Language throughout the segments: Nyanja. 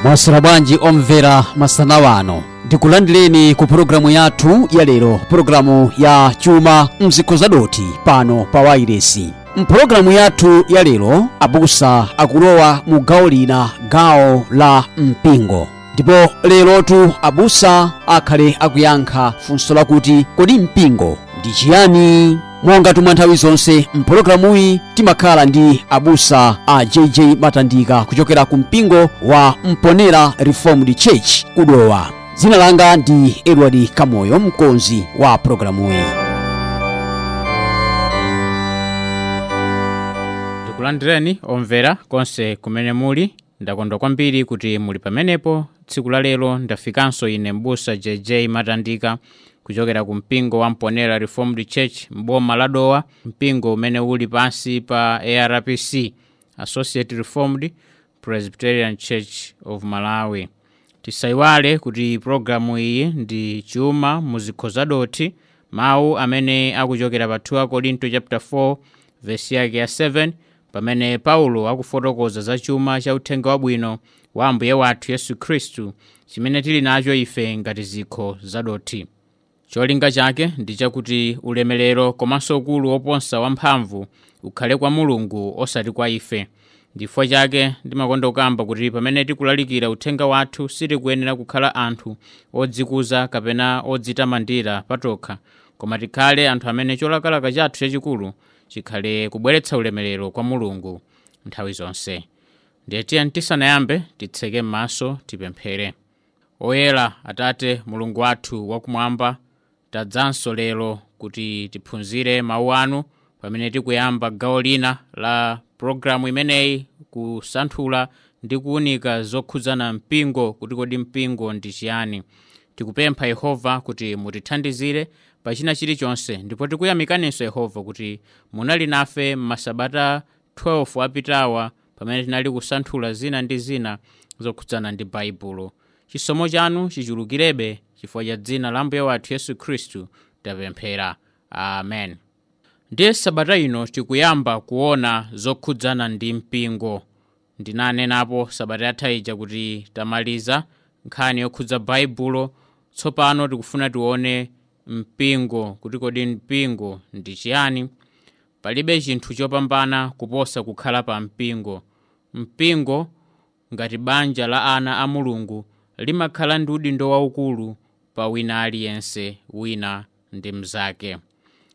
Mwaswera bwanji omvera masana wano, ndikulandireni ku pulogalamu yathu ya lero, pulogalamu ya chuma mzikho zadoti pano pa wairesi. Mpulogalamu yathu ya lero abusa akulowa mu gawo lina, gawo la mpingo. Ndipo lerotu abusa akhale akuyankha funso lakuti kodi mpingo ndi chiyani? Monga tumwa nthawi zonse mpulogalamuyi timakhala ndi abusa a JJ Matandika kuchokera ku mpingo wa Mponera Reformed Church kudowa. Dzina langa ndi Edward Kamoyo, mkonzi wa pulogalamuyi. Ndikulandireni omvera konse kumene muli. Ndakondwa kwambiri kuti muli pamenepo. Tsiku la lero ndafikanso ine mbusa JJ Matandika kuchokera ku mpingo wa Mponera Reformed Church mboma la Dowa, mpingo umene uli pansi pa ARPC, Associate Reformed Presbyterian Church of Malawi. Tisayiwale kuti programu iyi ndi chuma muzikho zadoti, mawu amene akuchokera pa 2 Korinto chapter 4 verse yake ya 7, pamene Paulo akufotokoza za chuma cha uthenga wabwino wa Ambuye wathu Yesu Khristu chimene tili nacho ife ngati zikho zadoti. Cholinga chake ndi chakuti ulemerero komanso ukulu woposa wamphamvu ukhale kwa Mulungu osati kwa ife. Ndifukwa chake ndimakonda kukamba kuti pamene tikulalikira uthenga wathu sitikuyenera kukhala anthu odzikuza kapena odzitamandira patokha, koma tikhale anthu amene cholakalaka chathu chachikulu chikhale kubweretsa ulemerero kwa Mulungu nthawi zonse. Ndiye tiye tisanayambe titseke m'maso tipemphere. Oyera Atate Mulungu wathu wakumwamba, tadzanso lero kuti tiphunzire mawu anu pamene tikuyamba gawo lina la programu imeneyi, kusanthula ndi kuwunika zokhudzana mpingo, kuti kodi mpingo ndi chiyani. Tikupempha Yehova kuti mutithandizire pa china chilichonse, ndipo tikuyamikaninso Yehova kuti munali nafe m'masabata 12 apitawa pamene tinali kusanthula zina ndi zina zokhudzana ndi Baibulo. Chisomo chanu chichulukirebe chifukwa cha dzina la Ambuye wathu Yesu Khristu tapemphera, amen. Ndiye sabata ino tikuyamba kuona zokhudzana ndi mpingo. Ndinanenapo sabata yatha ija kuti tamaliza nkhani yokhudza Baibulo. Tsopano tikufuna tione mpingo, kuti kodi mpingo ndi chiyani. Palibe chinthu chopambana kuposa kukhala pa mpingo. Mpingo ngati banja la ana a Mulungu limakhala ndi udindo waukulu pa wina aliyense, wina ndi mnzake.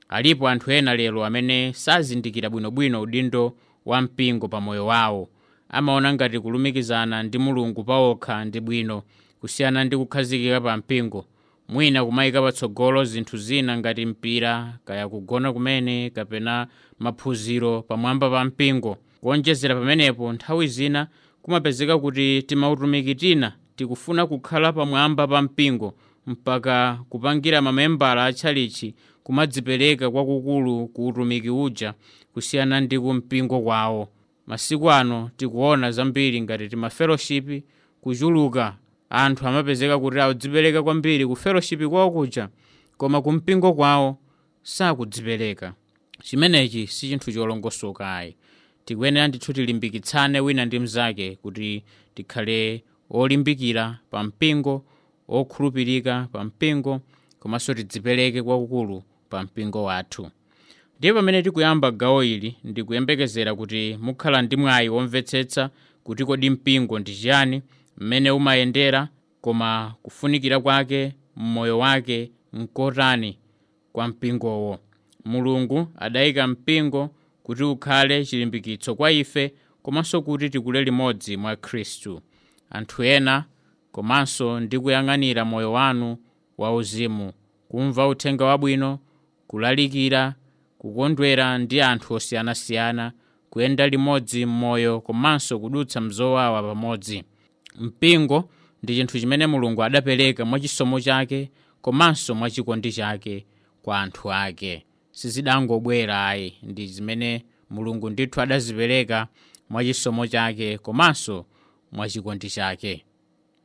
Alipo anthu ena lero amene sazindikira bwinobwino udindo wa mpingo pa moyo wawo. Amaona ngati kulumikizana ndi Mulungu pawokha ndi bwino kusiyana ndi kukhazikika pa mpingo, mwina kumayika patsogolo zinthu zina ngati mpira, kaya kugona kumene, kapena maphunziro pamwamba pa mpingo. Kuonjezera pamenepo, nthawi zina kumapezeka kuti timautumiki tina tikufuna kukhala pamwamba pa mpingo mpaka kupangira mamembala atchalichi kumadzipereka kwakukulu ku utumiki uja kusiyana ndi ku mpingo kwawo. Masiku ano tikuona zambiri ngati timafellowship kuchuluka, anthu amapezeka kuti akudzipereka kwambiri ku fellowship kwawo kuja, koma ku mpingo kwawo sakudzipereka. Chimenechi si chinthu cholongosoka ayi. Tikuyenera ndithu tilimbikitsane wina ndi mnzake kuti tikhale olimbikira pa mpingo, okhulupirika pa mpingo, komanso tidzipereke kwakukulu pa mpingo wathu. Ndiye pamene tikuyamba gawo ili, ndikuyembekezera kuti mukhala ndi mwayi womvetsetsa kuti kodi mpingo ndi chiyani, mmene umayendera, koma kufunikira kwake mmoyo wake nkotani kwa mpingowo. Mulungu adayika mpingo kuti ukhale chilimbikitso kwa ife, komanso kuti tikule limodzi mwa Khristu. Anthu ena komanso ndi kuyang'anira moyo wanu wauzimu, kumva uthenga wabwino, kulalikira, kukondwera ndi anthu osiyanasiyana, kuyenda limodzi m'moyo komanso kudutsa mzowawa pamodzi. Mpingo ndi chinthu chimene Mulungu adapereka mwachisomo chake komanso mwachikondi chake kwa anthu ake. Sizidangobwera ayi, ndi zimene Mulungu ndithu adazipereka mwachisomo chake komanso mwachikondi chake.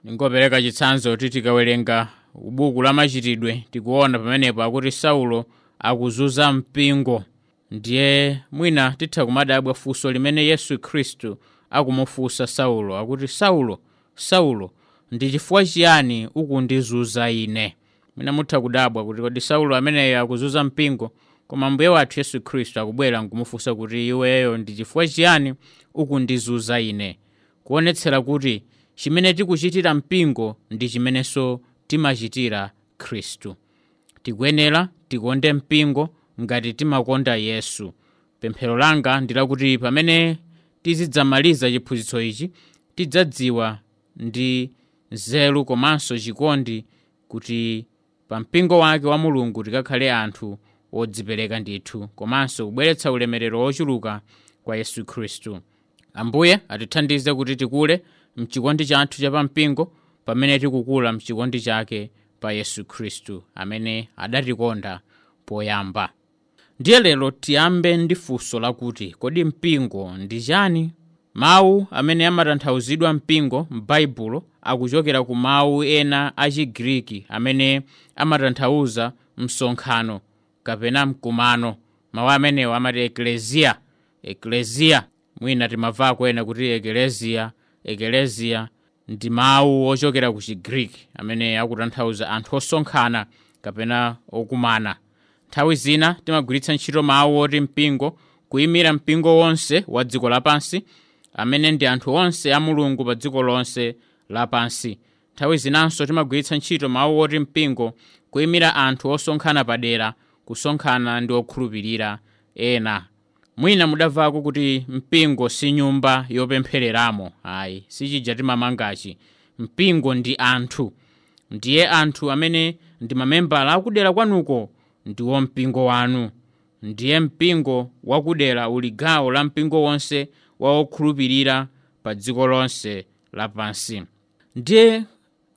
Ningopereka chitsanzo kuti tikawerenga buku la Machitidwe tikuona pamenepo akuti Saulo akuzunza mpingo. Ndiye mwina titha kumadabwa funso limene Yesu Khristu akumufunsa Saulo, akuti Saulo, Saulo, ndi chifukwa chiyani ukundizunza ine? Mwina mutha kudabwa kuti kodi Saulo ameneyo akuzunza mpingo, koma Ambuye wathu Yesu Khristu akubwera nkumufunsa kuti iweyo ndi chifukwa chiyani ukundizunza ine? Kuonetsera kuti chimene tikuchitira mpingo ndi chimenenso timachitira Khristu. Tikuyenera tikonde mpingo ngati timakonda Yesu. Pemphero langa ndi lakuti pamene tizidzamaliza chiphunzitso ichi, tidzadziwa ndi nzeru komanso chikondi kuti pa mpingo wake wa Mulungu tikakhale anthu odzipereka ndithu, komanso kubweretsa ulemerero wochuluka kwa Yesu Khristu. Ambuye atithandize kuti tikule mchikondi chathu cha pampingo pamene tikukula mchikondi chake pa Yesu Khristu amene adatikonda poyamba. Ndiye lero tiyambe ndi funso lakuti kodi mpingo ndi chani? Mawu amene amatanthauzidwa mpingo m'Baibulo akuchokera ku mawu ena a Chigriki amene amatanthauza msonkhano kapena mkumano. Mawu amenewo amati eklesia. Eklesia, mwina timamvako ena kuti eklesia. Eklesia ndi mawu ochokera ku Chigriki amene akutanthauza anthu osonkhana kapena okumana. Nthawi zina timagwiritsa ntchito mawu oti mpingo kuyimira mpingo wonse wa dziko lapansi, amene ndi anthu onse a Mulungu pa dziko lonse lapansi. Nthawi zinanso timagwiritsa ntchito mawu oti mpingo kuyimira anthu osonkhana padera, kusonkhana ndi okhulupirira ena. Mwina mudamvako kuti mpingo si nyumba yopemphereramo. Ayi, sichija timamangachi. Mpingo ndi anthu. Ndiye anthu amene ndi mamembala akudera kwanuko ndiwo mpingo wanu. Ndiye mpingo wakudera uli gawo la mpingo wonse wa okhulupirira pa dziko lonse lapansi. Ndiye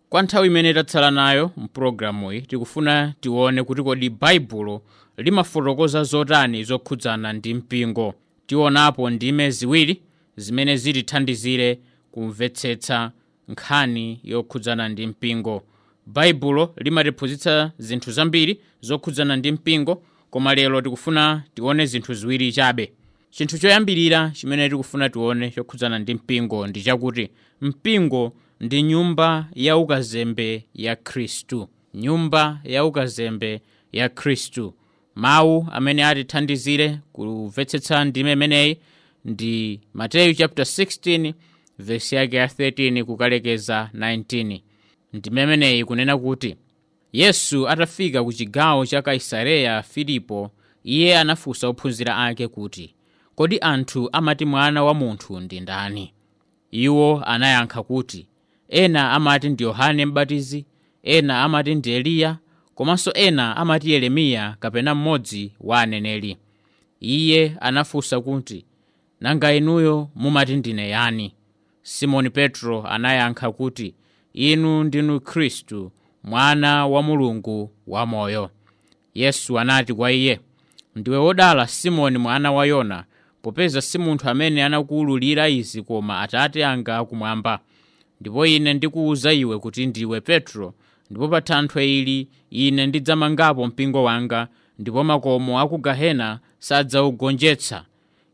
kwa nthawi imene tatsala nayo mpulogalamuyi, tikufuna tione kuti kodi Baibulo limafotokoza zotani zokhudzana ndi mpingo. Tionapo ndime ziwiri zimene zitithandizire kumvetsetsa nkhani yokhudzana ndi mpingo. Baibulo limatiphunzitsa zinthu zambiri zokhudzana ndi mpingo, koma lero tikufuna tione zinthu ziwiri chabe. Chinthu choyambirira chimene tikufuna tione chokhudzana ndi mpingo ndi chakuti mpingo ndi nyumba ya ukazembe ya Khristu. Nyumba ya ukazembe ya Khristu. Mawu amene atithandizire kumvetsetsa ndime imeneyi ndi Mateyu chapter 16 verse yake ya 13 kukalekeza 19. Ndime imeneyi kunena kuti Yesu atafika ku chigawo cha Kaisareya Filipo, iye anafunsa ophunzira ake kuti, kodi anthu amati mwana wa munthu ndi ndani? Iwo anayankha kuti, ena amati ndi Yohane Mbatizi, ena amati ndi Eliya, komanso ena amati Yeremiya kapena mmodzi wa aneneri. Iye anafunsa kuti, nanga inuyo mumati ndine yani? Simoni Petro anayankha kuti, inu ndinu Khristu, mwana wa Mulungu wamoyo. Yesu anati kwa iye, ndiwe wodala Simoni mwana wa Yona, popeza si munthu amene anakuwululira izi koma Atate anga akumwamba. Ndipo ine ndikuwuza iwe kuti ndiwe Petro, ndipo pa thanthwe ili ine ndidzamangapo mpingo wanga, ndipo makomo a ku gehena sadzawugonjetsa.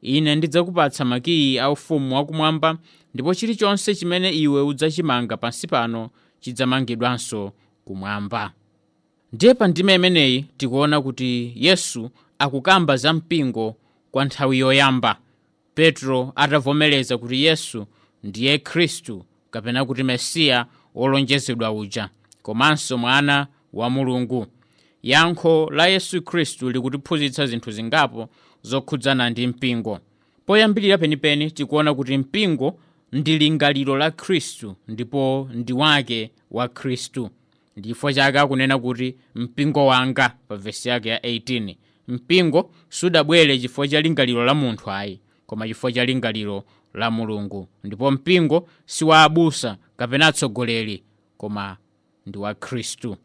Ine ndidzakupatsa makiyi a ufumu wakumwamba, ndipo chilichonse chimene iwe udzachimanga pansi pano chidzamangidwanso kumwamba. Ndiye pa ndime imeneyi tikuona kuti Yesu akukamba za mpingo kwa nthawi yoyamba. Petro atavomereza kuti Yesu ndiye Khristu kapena kuti Mesiya wolonjezedwa uja, komanso mwana wa Mulungu. Yankho la Yesu Khristu likutiphunzitsa zinthu zingapo zokhudzana ndi mpingo. Poyambirira penipeni tikuona kuti mpingo ndi lingaliro la Khristu ndipo ndi wake wa Khristu. Ndifo chake akunena kuti mpingo wanga pa vesi yake ya 18. Mpingo sudabwere chifukwa cha lingaliro la munthu ayi, koma chifukwa cha lingaliro la Mulungu. Ndipo mpingo si wa abusa kapena atsogoleri, koma ndi wa Khristu.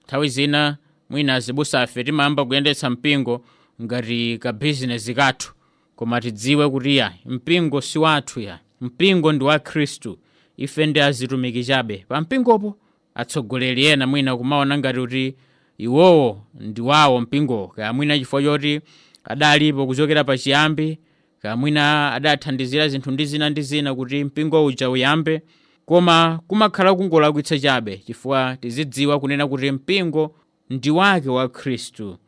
Nthawi zina mwina azibusa afe timayamba kuyendetsa mpingo ngati ka bizinesi kathu, koma tidziwe kuti ya mpingo si wathu ya mpingo ndi wa Khristu. Ife ndi azitumiki chabe pa mpingopo. Atsogoleri ena mwina kumaona ngati kuti iwowo ndi wawo mpingowo, kaya mwina chifukwa choti adalipo kuchokera pachiyambi, kaya mwina adathandizira zinthu ndi zina ndi zina kuti mpingo uja uyambe. Koma kumakhala kungolakwitsa chabe, chifukwa tizidziwa kunena kuti mpingo ndi wake wa Khristu.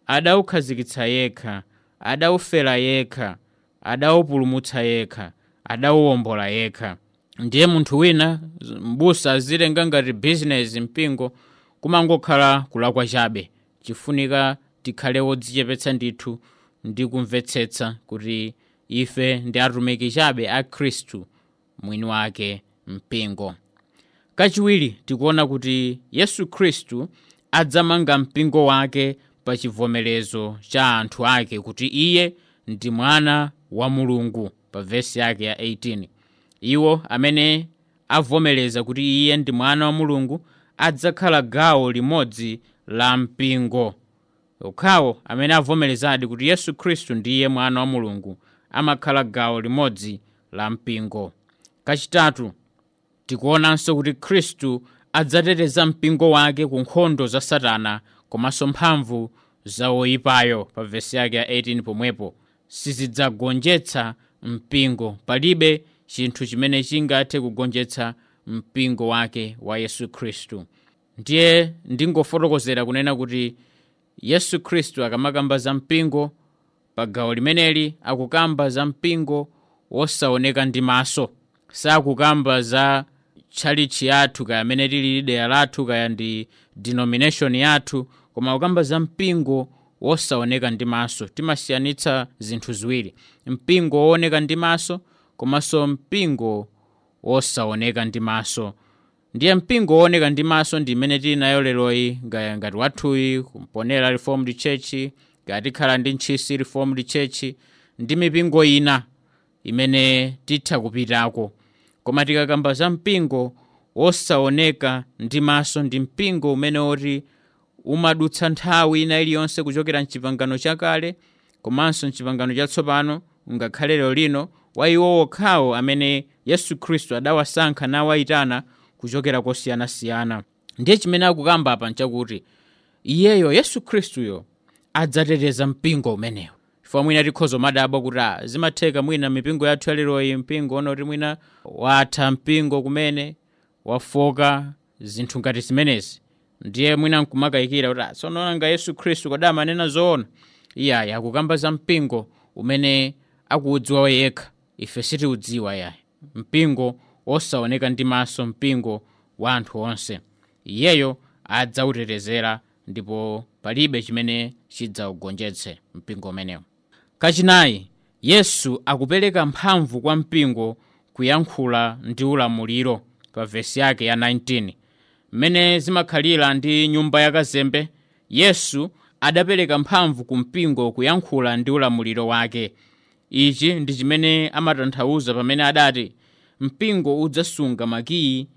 Adawukhazikitsa yekha, adawufera yekha, adawupulumutsa yekha, adawuwombola yekha. Ndiye munthu wina mbusa azitenga ngati bizinesi mpingo, kumangokhala kulakwa chabe. Chifunika tikhale wodzichepetsa ndithu ndi kumvetsetsa kuti ife ndi atumiki chabe a Khristu mwini wake mpingo. Kachiwiri tikuona kuti Yesu Khristu adzamanga mpingo wake pa chivomerezo cha anthu ake kuti iye ndi mwana wa Mulungu, pa vesi yake ya 18. Iwo amene avomereza kuti iye ndi mwana wa Mulungu adzakhala gawo limodzi la mpingo. Okhawo amene avomerezadi kuti Yesu Khristu ndiye mwana wa Mulungu amakhala gawo limodzi la mpingo. Kachitatu tikuonanso kuti Khristu adzateteza mpingo wake ku nkhondo za Satana komanso mphamvu za woyipayo, pa vesi yake ya 18 pomwepo. Sizidzagonjetsa mpingo. Palibe chinthu chimene chingathe kugonjetsa mpingo wake wa Yesu Khristu. Ndiye ndingofotokozera kunena kuti Yesu Khristu akamakamba za mpingo pa gawo limeneli akukamba za mpingo wosaoneka ndi maso. Sakukamba za tchalitchi yathu kaya amene tili dera lathu kaya ndi denomination yathu, koma akukamba za mpingo wosaoneka ndi maso. Timasiyanitsa zinthu ziwiri: mpingo wooneka ndi maso komanso mpingo wosaoneka ndi maso. Ndiye mpingo wooneka ndi maso ndi imene tili nayo leroyi, ngati wathuyi kumponera Reformed Church, ngati tikhala ndi Ntchisi Reformed Church ndi mipingo ina imene titha kupitako. Koma tikakamba za mpingo wosaoneka ndi maso, ndi mpingo umene woti umadutsa nthawi ina iliyonse kuchokera mchipangano chakale komanso mchipangano chatsopano, ngakhale lero lino, wa iwo okhawo amene Yesu Khristu adawasankha nawayitana kuchokera kosiyanasiyana. Ndiye chimene akukamba apa nchakuti iyeyo Yesu Khristuyo adzateteza mpingo umenewo. Chifukwa mwina tikhoza madabwa kuti zimatheka mwina mipingo yathu yaleroyi mpingo onoti mwina watha mpingo kumene wafoka, zinthu ngati zimenezi. Ndiye mwina nkumakayikira kuti tsono nanga Yesu Khristu kodi amanena zoona? Iyayi, akukamba za mpingo umene akuudziwa yekha, ife sitiudziwa yayi. Mpingo wosaoneka ndi maso, mpingo wa anthu onse, iyeyo adzautetezera ndipo palibe chimene chidzaugonjetse mpingo umenewo. Kachinayi, Yesu akupereka mphamvu kwa mpingo kuyankhula ndi ulamuliro, pa vesi yake ya 19. Mmene zimakhalira ndi nyumba yakazembe, Yesu adapereka mphamvu ku mpingo kuyankhula ndi ulamuliro wake. Ichi ndi chimene amatanthauza pamene adati mpingo udzasunga makiyi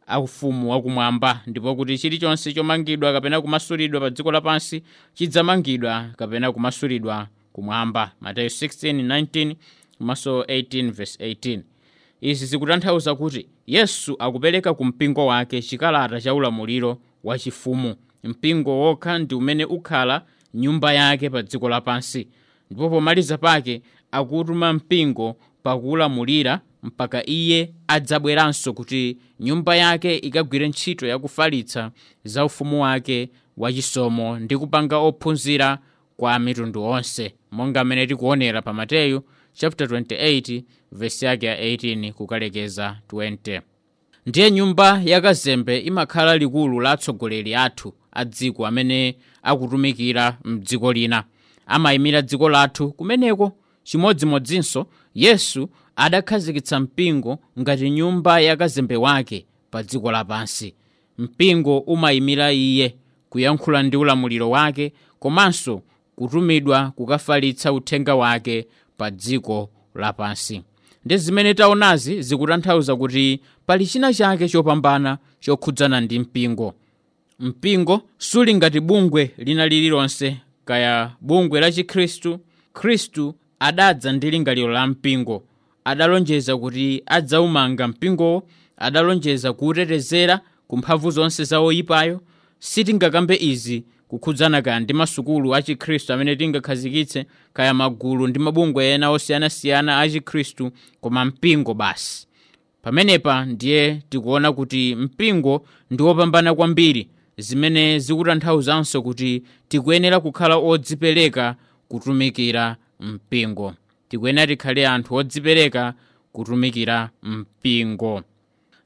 a ufumu wakumwamba, ndipo kuti chilichonse chomangidwa kapena kumasulidwa pa dziko lapansi chidzamangidwa kapena kumasulidwa kumwamba. Mateyu 16:19 komanso 18:18. Izi zikutanthauza kuti Yesu akupereka ku mpingo wake chikalata cha ulamuliro wachifumu. Mpingo wokha ndi umene ukhala nyumba yake pa dziko lapansi, ndipo pomaliza pake akutuma mpingo pakulamulira mpaka iye adzabweranso kuti nyumba yake ikagwire ntchito yakufalitsa za ufumu wake wachisomo ndi kupanga ophunzira kwa mitundu onse, monga mmene tikuonera pa Mateyu chapter 28 verse yake ya 18 kukalekeza 20. Ndiye nyumba yakazembe imakhala likulu la atsogoleri athu a dziko amene akutumikira mdziko lina, amayimira dziko lathu kumeneko. Chimodzimodzinso Yesu adakhazikitsa mpingo ngati nyumba yakazembe wake pa dziko lapansi. Mpingo umayimira iye kuyankhula ndi ulamuliro wake komanso kutumidwa kukafalitsa uthenga wake pa dziko lapansi. Ndi zimene taonazi zikutanthauza kuti pali china chake chopambana chokhudzana ndi mpingo. Mpingo suli ngati bungwe lina lililonse, kaya bungwe la Chikhristu. Khristu adadza ndi lingaliro la mpingo, adalonjeza kuti adzaumanga mpingowo, adalonjeza kuwutetezera ku mphamvu zonse za oyipayo. Sitingakambe izi kukhudzana kaya ndi masukulu a Chikhristu amene tingakhazikitse, kaya magulu ndi mabungwe ena osiyanasiyana a Chikhristu, koma mpingo basi. Pamenepa ndiye tikuona kuti mpingo ndi wopambana kwambiri, zimene zikutanthauzanso kuti tikuyenera kukhala odzipereka kutumikira mpingo. Tikuyenera tikhale anthu odzipereka kutumikira mpingo.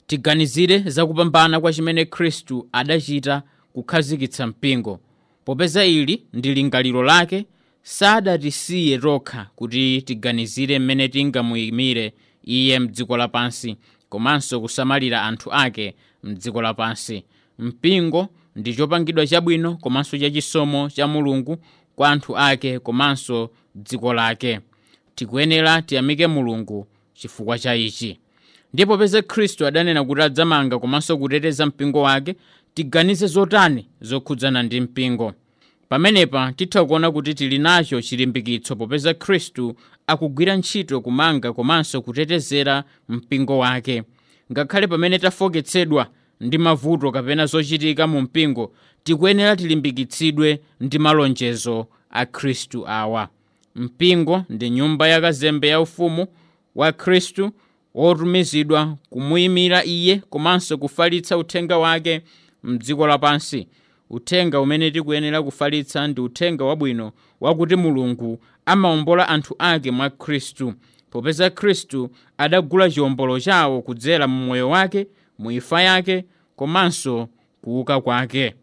Tiganizire zakupambana kwa chimene Khristu adachita kukhazikitsa mpingo. Popeza ili ndi lingaliro lake, sadatisiye tokha kuti tiganizire mmene tingamuyimire iye mdziko lapansi komanso kusamalira anthu ake mdziko lapansi. Mpingo ndi chopangidwa chabwino komanso chachisomo cha Mulungu kwa anthu ake komanso dziko lake. Tikuyenera tiyamike Mulungu chifukwa cha ichi. Ndipo popeza Khristu adanena kuti adzamanga komanso kuteteza mpingo wake, tiganize zotani zokhudzana ndi mpingo. Pamenepa titha kuona kuti tili nacho chilimbikitso popeza Khristu akugwira ntchito kumanga komanso kutetezera mpingo wake. Ngakhale pamene tafoketsedwa ndi mavuto kapena zochitika mu mpingo, tikuyenera tilimbikitsidwe ndi malonjezo a Khristu awa. Mpingo ndi nyumba yakazembe ya ufumu wa Khristu wotumizidwa kumuyimira iye komanso kufalitsa uthenga wake mdziko lapansi. Uthenga umene tikuyenera kufalitsa ndi uthenga wabwino wakuti Mulungu amawombola anthu ake mwa Khristu, popeza Khristu adagula chiwombolo chawo kudzera mu moyo wake, mu imfa yake komanso kuuka kwake.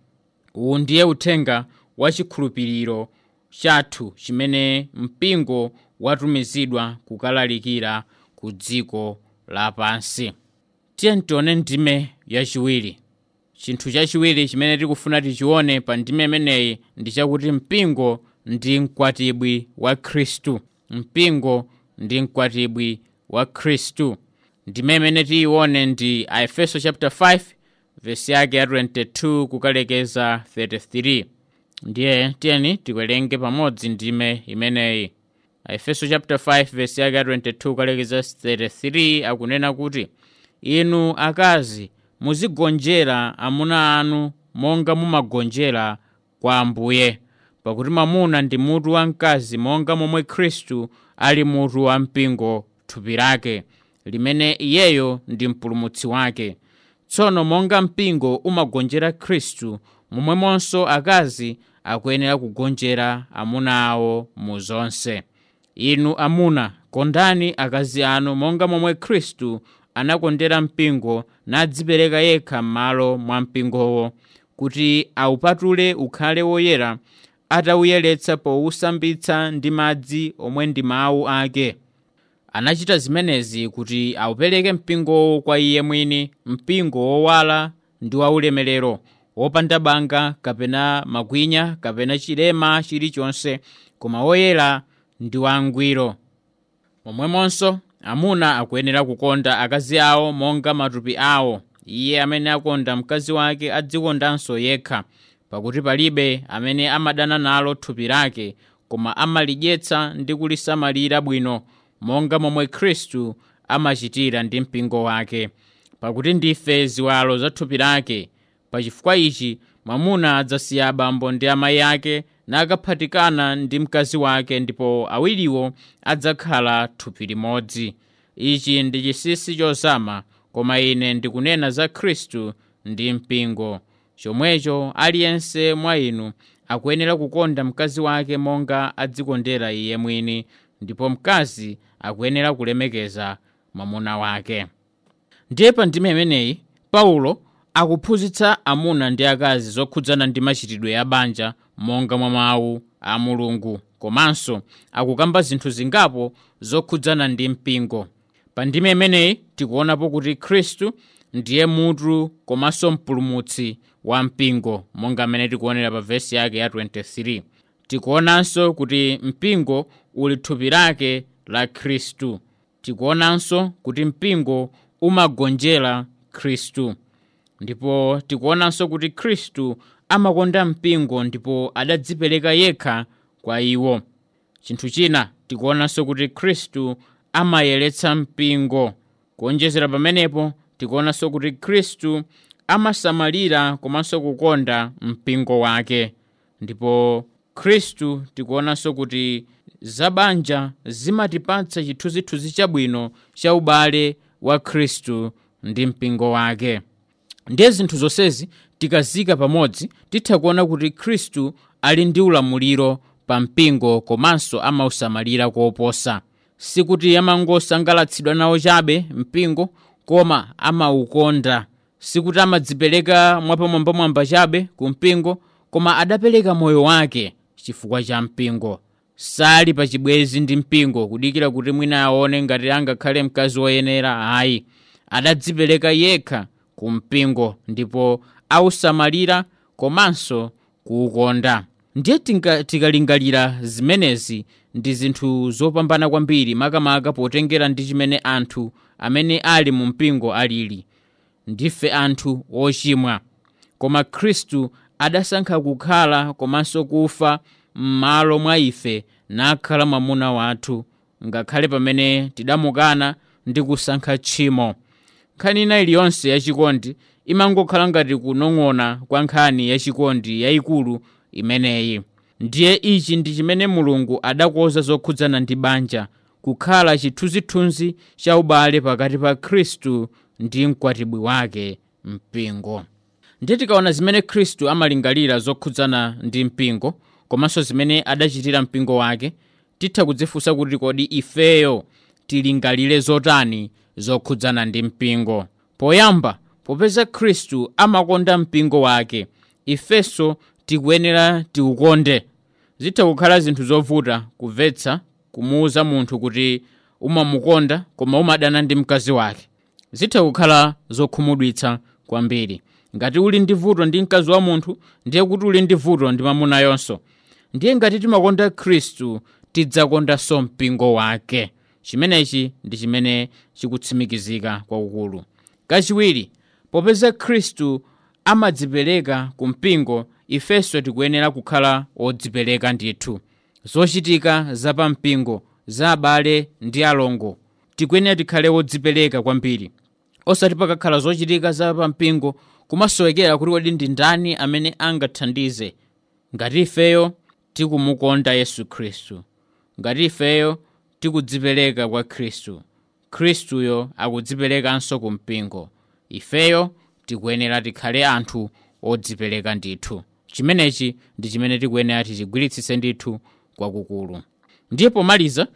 Uwu ndiye uthenga wa chikhulupiriro chathu chimene mpingo watumizidwa kukalalikira ku dziko lapansi. Tiye tione ndime yachiwiri. Chinthu chachiwiri chimene tikufuna tichione pa ndime imeneyi ndi chakuti mpingo ndi mkwatibwi wa Khristu. Mpingo ndi mkwatibwi wa Khristu. Ndime imene tiyione ndi Aefeso chapter 5 verse yake ya 22 kukalekeza 33. Ndiye tiyeni tiwerenge pamodzi ndime imeneyi. Aefeso chapter 5 verse yake ya 22 kukalekeza 33 akunena kuti, inu akazi muzigonjera amuna anu monga mumagonjera kwa Ambuye, pakuti mwamuna ndi mutu wa mkazi monga momwe Khristu ali mutu wa mpingo, thupi lake, limene iyeyo ndi mpulumutsi wake. Tsono monga mpingo umagonjera Khristu, momwemonso akazi akuyenera kugonjera amuna awo mu zonse. Inu amuna, kondani akazi anu monga momwe Khristu anakondera mpingo nadzipereka yekha m'malo mwa mpingowo, kuti awupatule ukhale woyera, atawuyeretsa powusambitsa ndi madzi omwe ndi mawu ake. Anachita zimenezi kuti awupereke mpingowo kwa iye mwini, mpingo wowala ndi waulemerero, wopanda banga kapena makwinya kapena chilema chilichonse, koma woyera ndi wangwiro. Momwemonso amuna akuyenera kukonda akazi awo monga matupi awo. Iye amene akonda mkazi wake adzikondanso yekha, pakuti palibe amene amadana nalo thupi lake, koma amalidyetsa ndi kulisamalira bwino, monga momwe Khristu amachitira ndi mpingo wake, pakuti ndife ziwalo za thupi lake. Pachifukwa ichi mwamuna adzasiya abambo ndi amayi ake nakaphatikana ndi mkazi wake, ndipo awiriwo adzakhala thupi limodzi. Ichi ndi chinsinsi chozama, koma ine ndikunena za Khristu ndi mpingo. Chomwecho aliyense mwa inu akuyenera kukonda mkazi wake monga adzikondera iye mwini, ndipo mkazi akuyenera kulemekeza mwamuna wake. Ndiye pa ndime imeneyi Paulo akuphunzitsa amuna ndi akazi zokhudzana ndi machitidwe ya banja monga mwa mawu a Mulungu, komanso akukamba zinthu zingapo zokhudzana ndi mpingo. Pa ndime imeneyi tikuonapo kuti Khristu ndiye mutu komanso mpulumutsi wa mpingo, monga mmene tikuonera pa vesi yake ya 23. Tikuonanso kuti mpingo uli thupi lake la Khristu. Tikuonanso kuti mpingo umagonjera Khristu. Ndipo tikuonanso kuti Khristu amakonda mpingo ndipo adadzipereka yekha kwa iwo. Chinthu china tikuonanso kuti Khristu amayeretsa mpingo. Kuonjezera pamenepo tikuonanso kuti Khristu amasamalira komanso kukonda mpingo wake. Ndipo Khristu tikuonanso kuti zabanja zimatipatsa chithunzithunzi chabwino cha ubale wa Khristu ndi mpingo wake. Ndiye zinthu zonsezi tikazika pamodzi titha kuona kuti Khristu ali ndi ulamuliro pa mpingo komanso amausamalira koposa. Sikuti amangosangalatsidwa nawo chabe mpingo, koma amaukonda. Sikuti amadzipereka mwapamwambamwamba chabe ku mpingo, koma adapereka moyo wake chifukwa cha mpingo. Sali pachibwezi ndi mpingo kudikira kuti mwina aone ngati angakhale mkazi woyenera, ayi. Adadzipereka yekha ku mpingo ndipo ausamalira komanso kuukonda. Ndiye tikalingalira zimenezi ndi zinthu zopambana kwambiri, makamaka potengera ndi chimene anthu amene ali mu mpingo alili. Ndife anthu ochimwa, koma Khristu adasankha kukhala komanso kufa m'malo mwa ife nakhala mwamuna wathu, ngakhale pamene tidamukana ndi kusankha tchimo. Nkhani ina iliyonse yachikondi imangokhala ngati kunong'ona kwa nkhani yachikondi yayikulu imeneyi. Ndiye ichi ndi chimene Mulungu adakonza zokhudzana ndi banja, kukhala chithunzithunzi cha ubale pakati pa Khristu ndi mkwatibwi wake mpingo. Ndiye tikaona zimene Khristu amalingalira zokhudzana ndi mpingo komanso zimene adachitira mpingo wake, titha kudzifunsa kuti kodi ifeyo tilingalire zotani zokhudzana ndi mpingo. Poyamba, popeza Khristu amakonda mpingo wake, ifenso tikuyenera tiukonde. Zitha kukhala zinthu zovuta kumvetsa kumuwuza munthu kuti umamukonda koma umadana ndi mkazi wake. Zitha kukhala zokhumudwitsa kwambiri. Ngati uli ndi vuto ndi mkazi wa munthu, ndiye kuti uli ndi vuto ndi mwamuna yonso. Ndiye ngati timakonda Khristu, tidzakondanso mpingo wake. Chimenechi ndi chimene chikutsimikizika kwakukulu. Kachiwiri, popeza Khristu amadzipereka ku mpingo, ifenso tikuyenera kukhala odzipereka ndithu. Zochitika za pampingo, za abale ndi alongo, tikuyenera tikhale odzipereka kwambiri. Osati pakakhala zochitika za pampingo kumasowekera kuti kodi ndi ndani amene angathandize. Ngati ifeyo tikumukonda Yesu Khristu, ngati ifeyo tikudzipereka kwa Khristu, Khristuyo akudziperekanso ku mpingo. Ifeyo tikuyenera tikhale anthu odzipereka ndithu. Chimenechi ndi chimene tikuyenera tichigwiritsitse ndithu kwakukulu. Ndiye pomaliza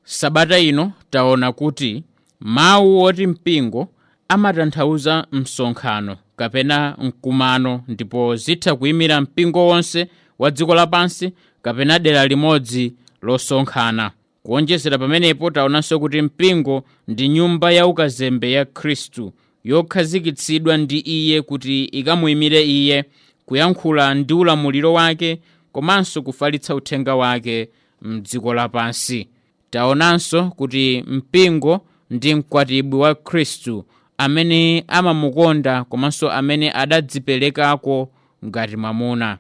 sabata ino taona kuti mawu oti mpingo amatanthauza msonkhano kapena mkumano, ndipo zitha kuyimira mpingo wonse wa dziko lapansi kapena dera limodzi losonkhana. Kuonjezera pamenepo taonanso kuti mpingo ndi nyumba ya ukazembe ya Khristu yokhazikitsidwa ndi iye kuti ikamuyimire iye, kuyankhula ndi ulamuliro wake komanso kufalitsa uthenga wake mdziko lapansi. Taonanso kuti mpingo ndi mkwatibwi wa Khristu amene amamukonda komanso amene adadziperekako ngati mwamuna.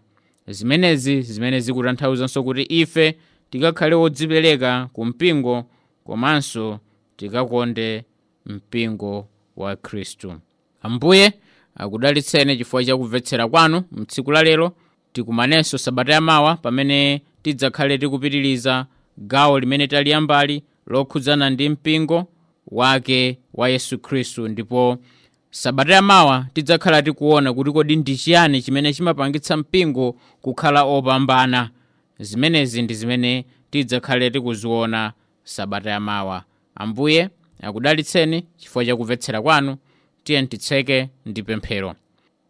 Zimenezi zimene zikutanthauzanso kuti ife tikakhale odzipereka ku mpingo komanso tikakonde mpingo wa Khristu. Ambuye akudalitseni chifukwa cha kumvetsera kwanu mtsiku la lero. Tikumanenso sabata yamawa pamene tidzakhale tikupitiriza gawo limene taliyambali lokhudzana ndi mpingo wake wa Yesu Khristu, ndipo sabata yamawa tidzakhala tikuona kuti kodi ndi chiyani chimene chimapangitsa mpingo kukhala opambana. Zimenezi ndi zimene tidzakhale tikuziona sabata yamawa. Ambuye akudalitseni chifukwa cha kumvetsera kwanu. Tiye titseke ndi pemphero.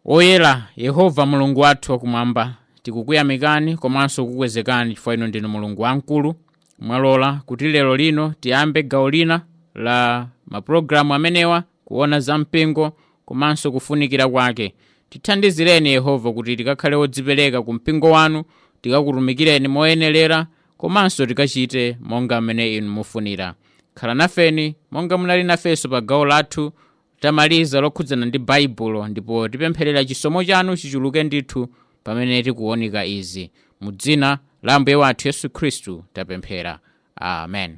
Oyera Yehova Mulungu wathu wakumwamba, tikukuyamikani komanso kukukwezekani chifukwa inu ndinu Mulungu wamkulu. Mwalola kuti lero lino tiyambe gawo lina la mapulogalamu amenewa, kuona za mpingo komanso kufunikira kwake. Tithandizireni Yehova kuti tikakhale odzipereka ku mpingo wanu, tikakutumikireni moyenerera komanso tikachite monga mmene inu mufunira. Khala nafeni monga munali nafenso pa gawo lathu tamaliza lokhudzana ndi Baibulo, ndipo tipempherera chisomo chanu chichuluke ndithu pamene tikuonika izi. Mu dzina la Ambuye wathu Yesu Khristu tapemphera, amen.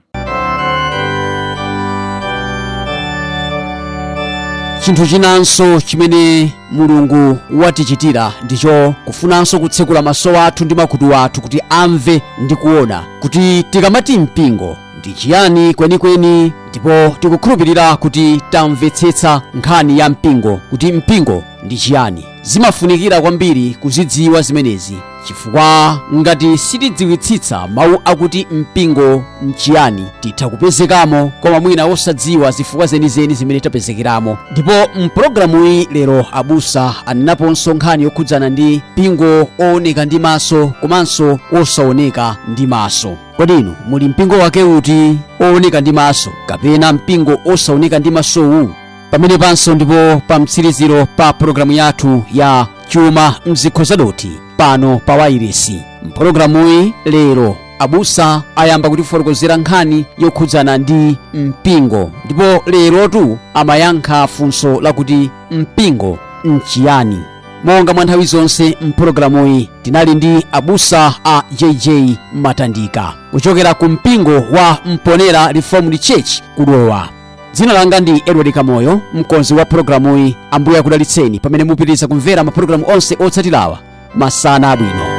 Chinthu chinanso chimene Mulungu watichitira ndicho kufunanso kutsekula maso athu ndi makutu athu kuti amve ndi kuona kuti tikamati mpingo Ndi chiyani kwenikweni? Ndipo tikukhulupirira kuti tamvetsetsa nkhani ya mpingo, kuti mpingo ndi chiyani. Zimafunikira kwambiri kuzidziwa zimenezi, chifukwa ngati sitidziwitsitsa mawu akuti mpingo nchiyani, titha kupezekamo koma mwina osadziwa zifukwa zenizeni zimene tapezekeramo. Ndipo mpulogalamuyi lero abusa anenaponso nkhani yokhudzana ndi mpingo ooneka ndi maso komanso osaoneka ndi maso. Kodi inu muli mpingo wake uti, ooneka ndi maso kapena mpingo osaoneka ndi masowu? Pamene panso ndipo pa mtsiriziro pa pulogalamu yathu ya Chuma Mzikho Zadoti pano pa wairesi. Mpulogalamuyi lero abusa ayamba kutifotokozera nkhani yokhudzana ndi mpingo, ndipo lerotu amayankha funso lakuti mpingo nchiyani. Monga mwa nthawi zonse mpulogalamuyi tinali ndi abusa a JJ Matandika kuchokera ku mpingo wa Mponera Reformed Church kudowa. Dzina langa ndi Edward Kamoyo, mkonzi wa pulogalamuyi. Ambuye akudalitseni pamene mupitiriza kumvera mapulogalamu onse otsatirawa. Masana abwino.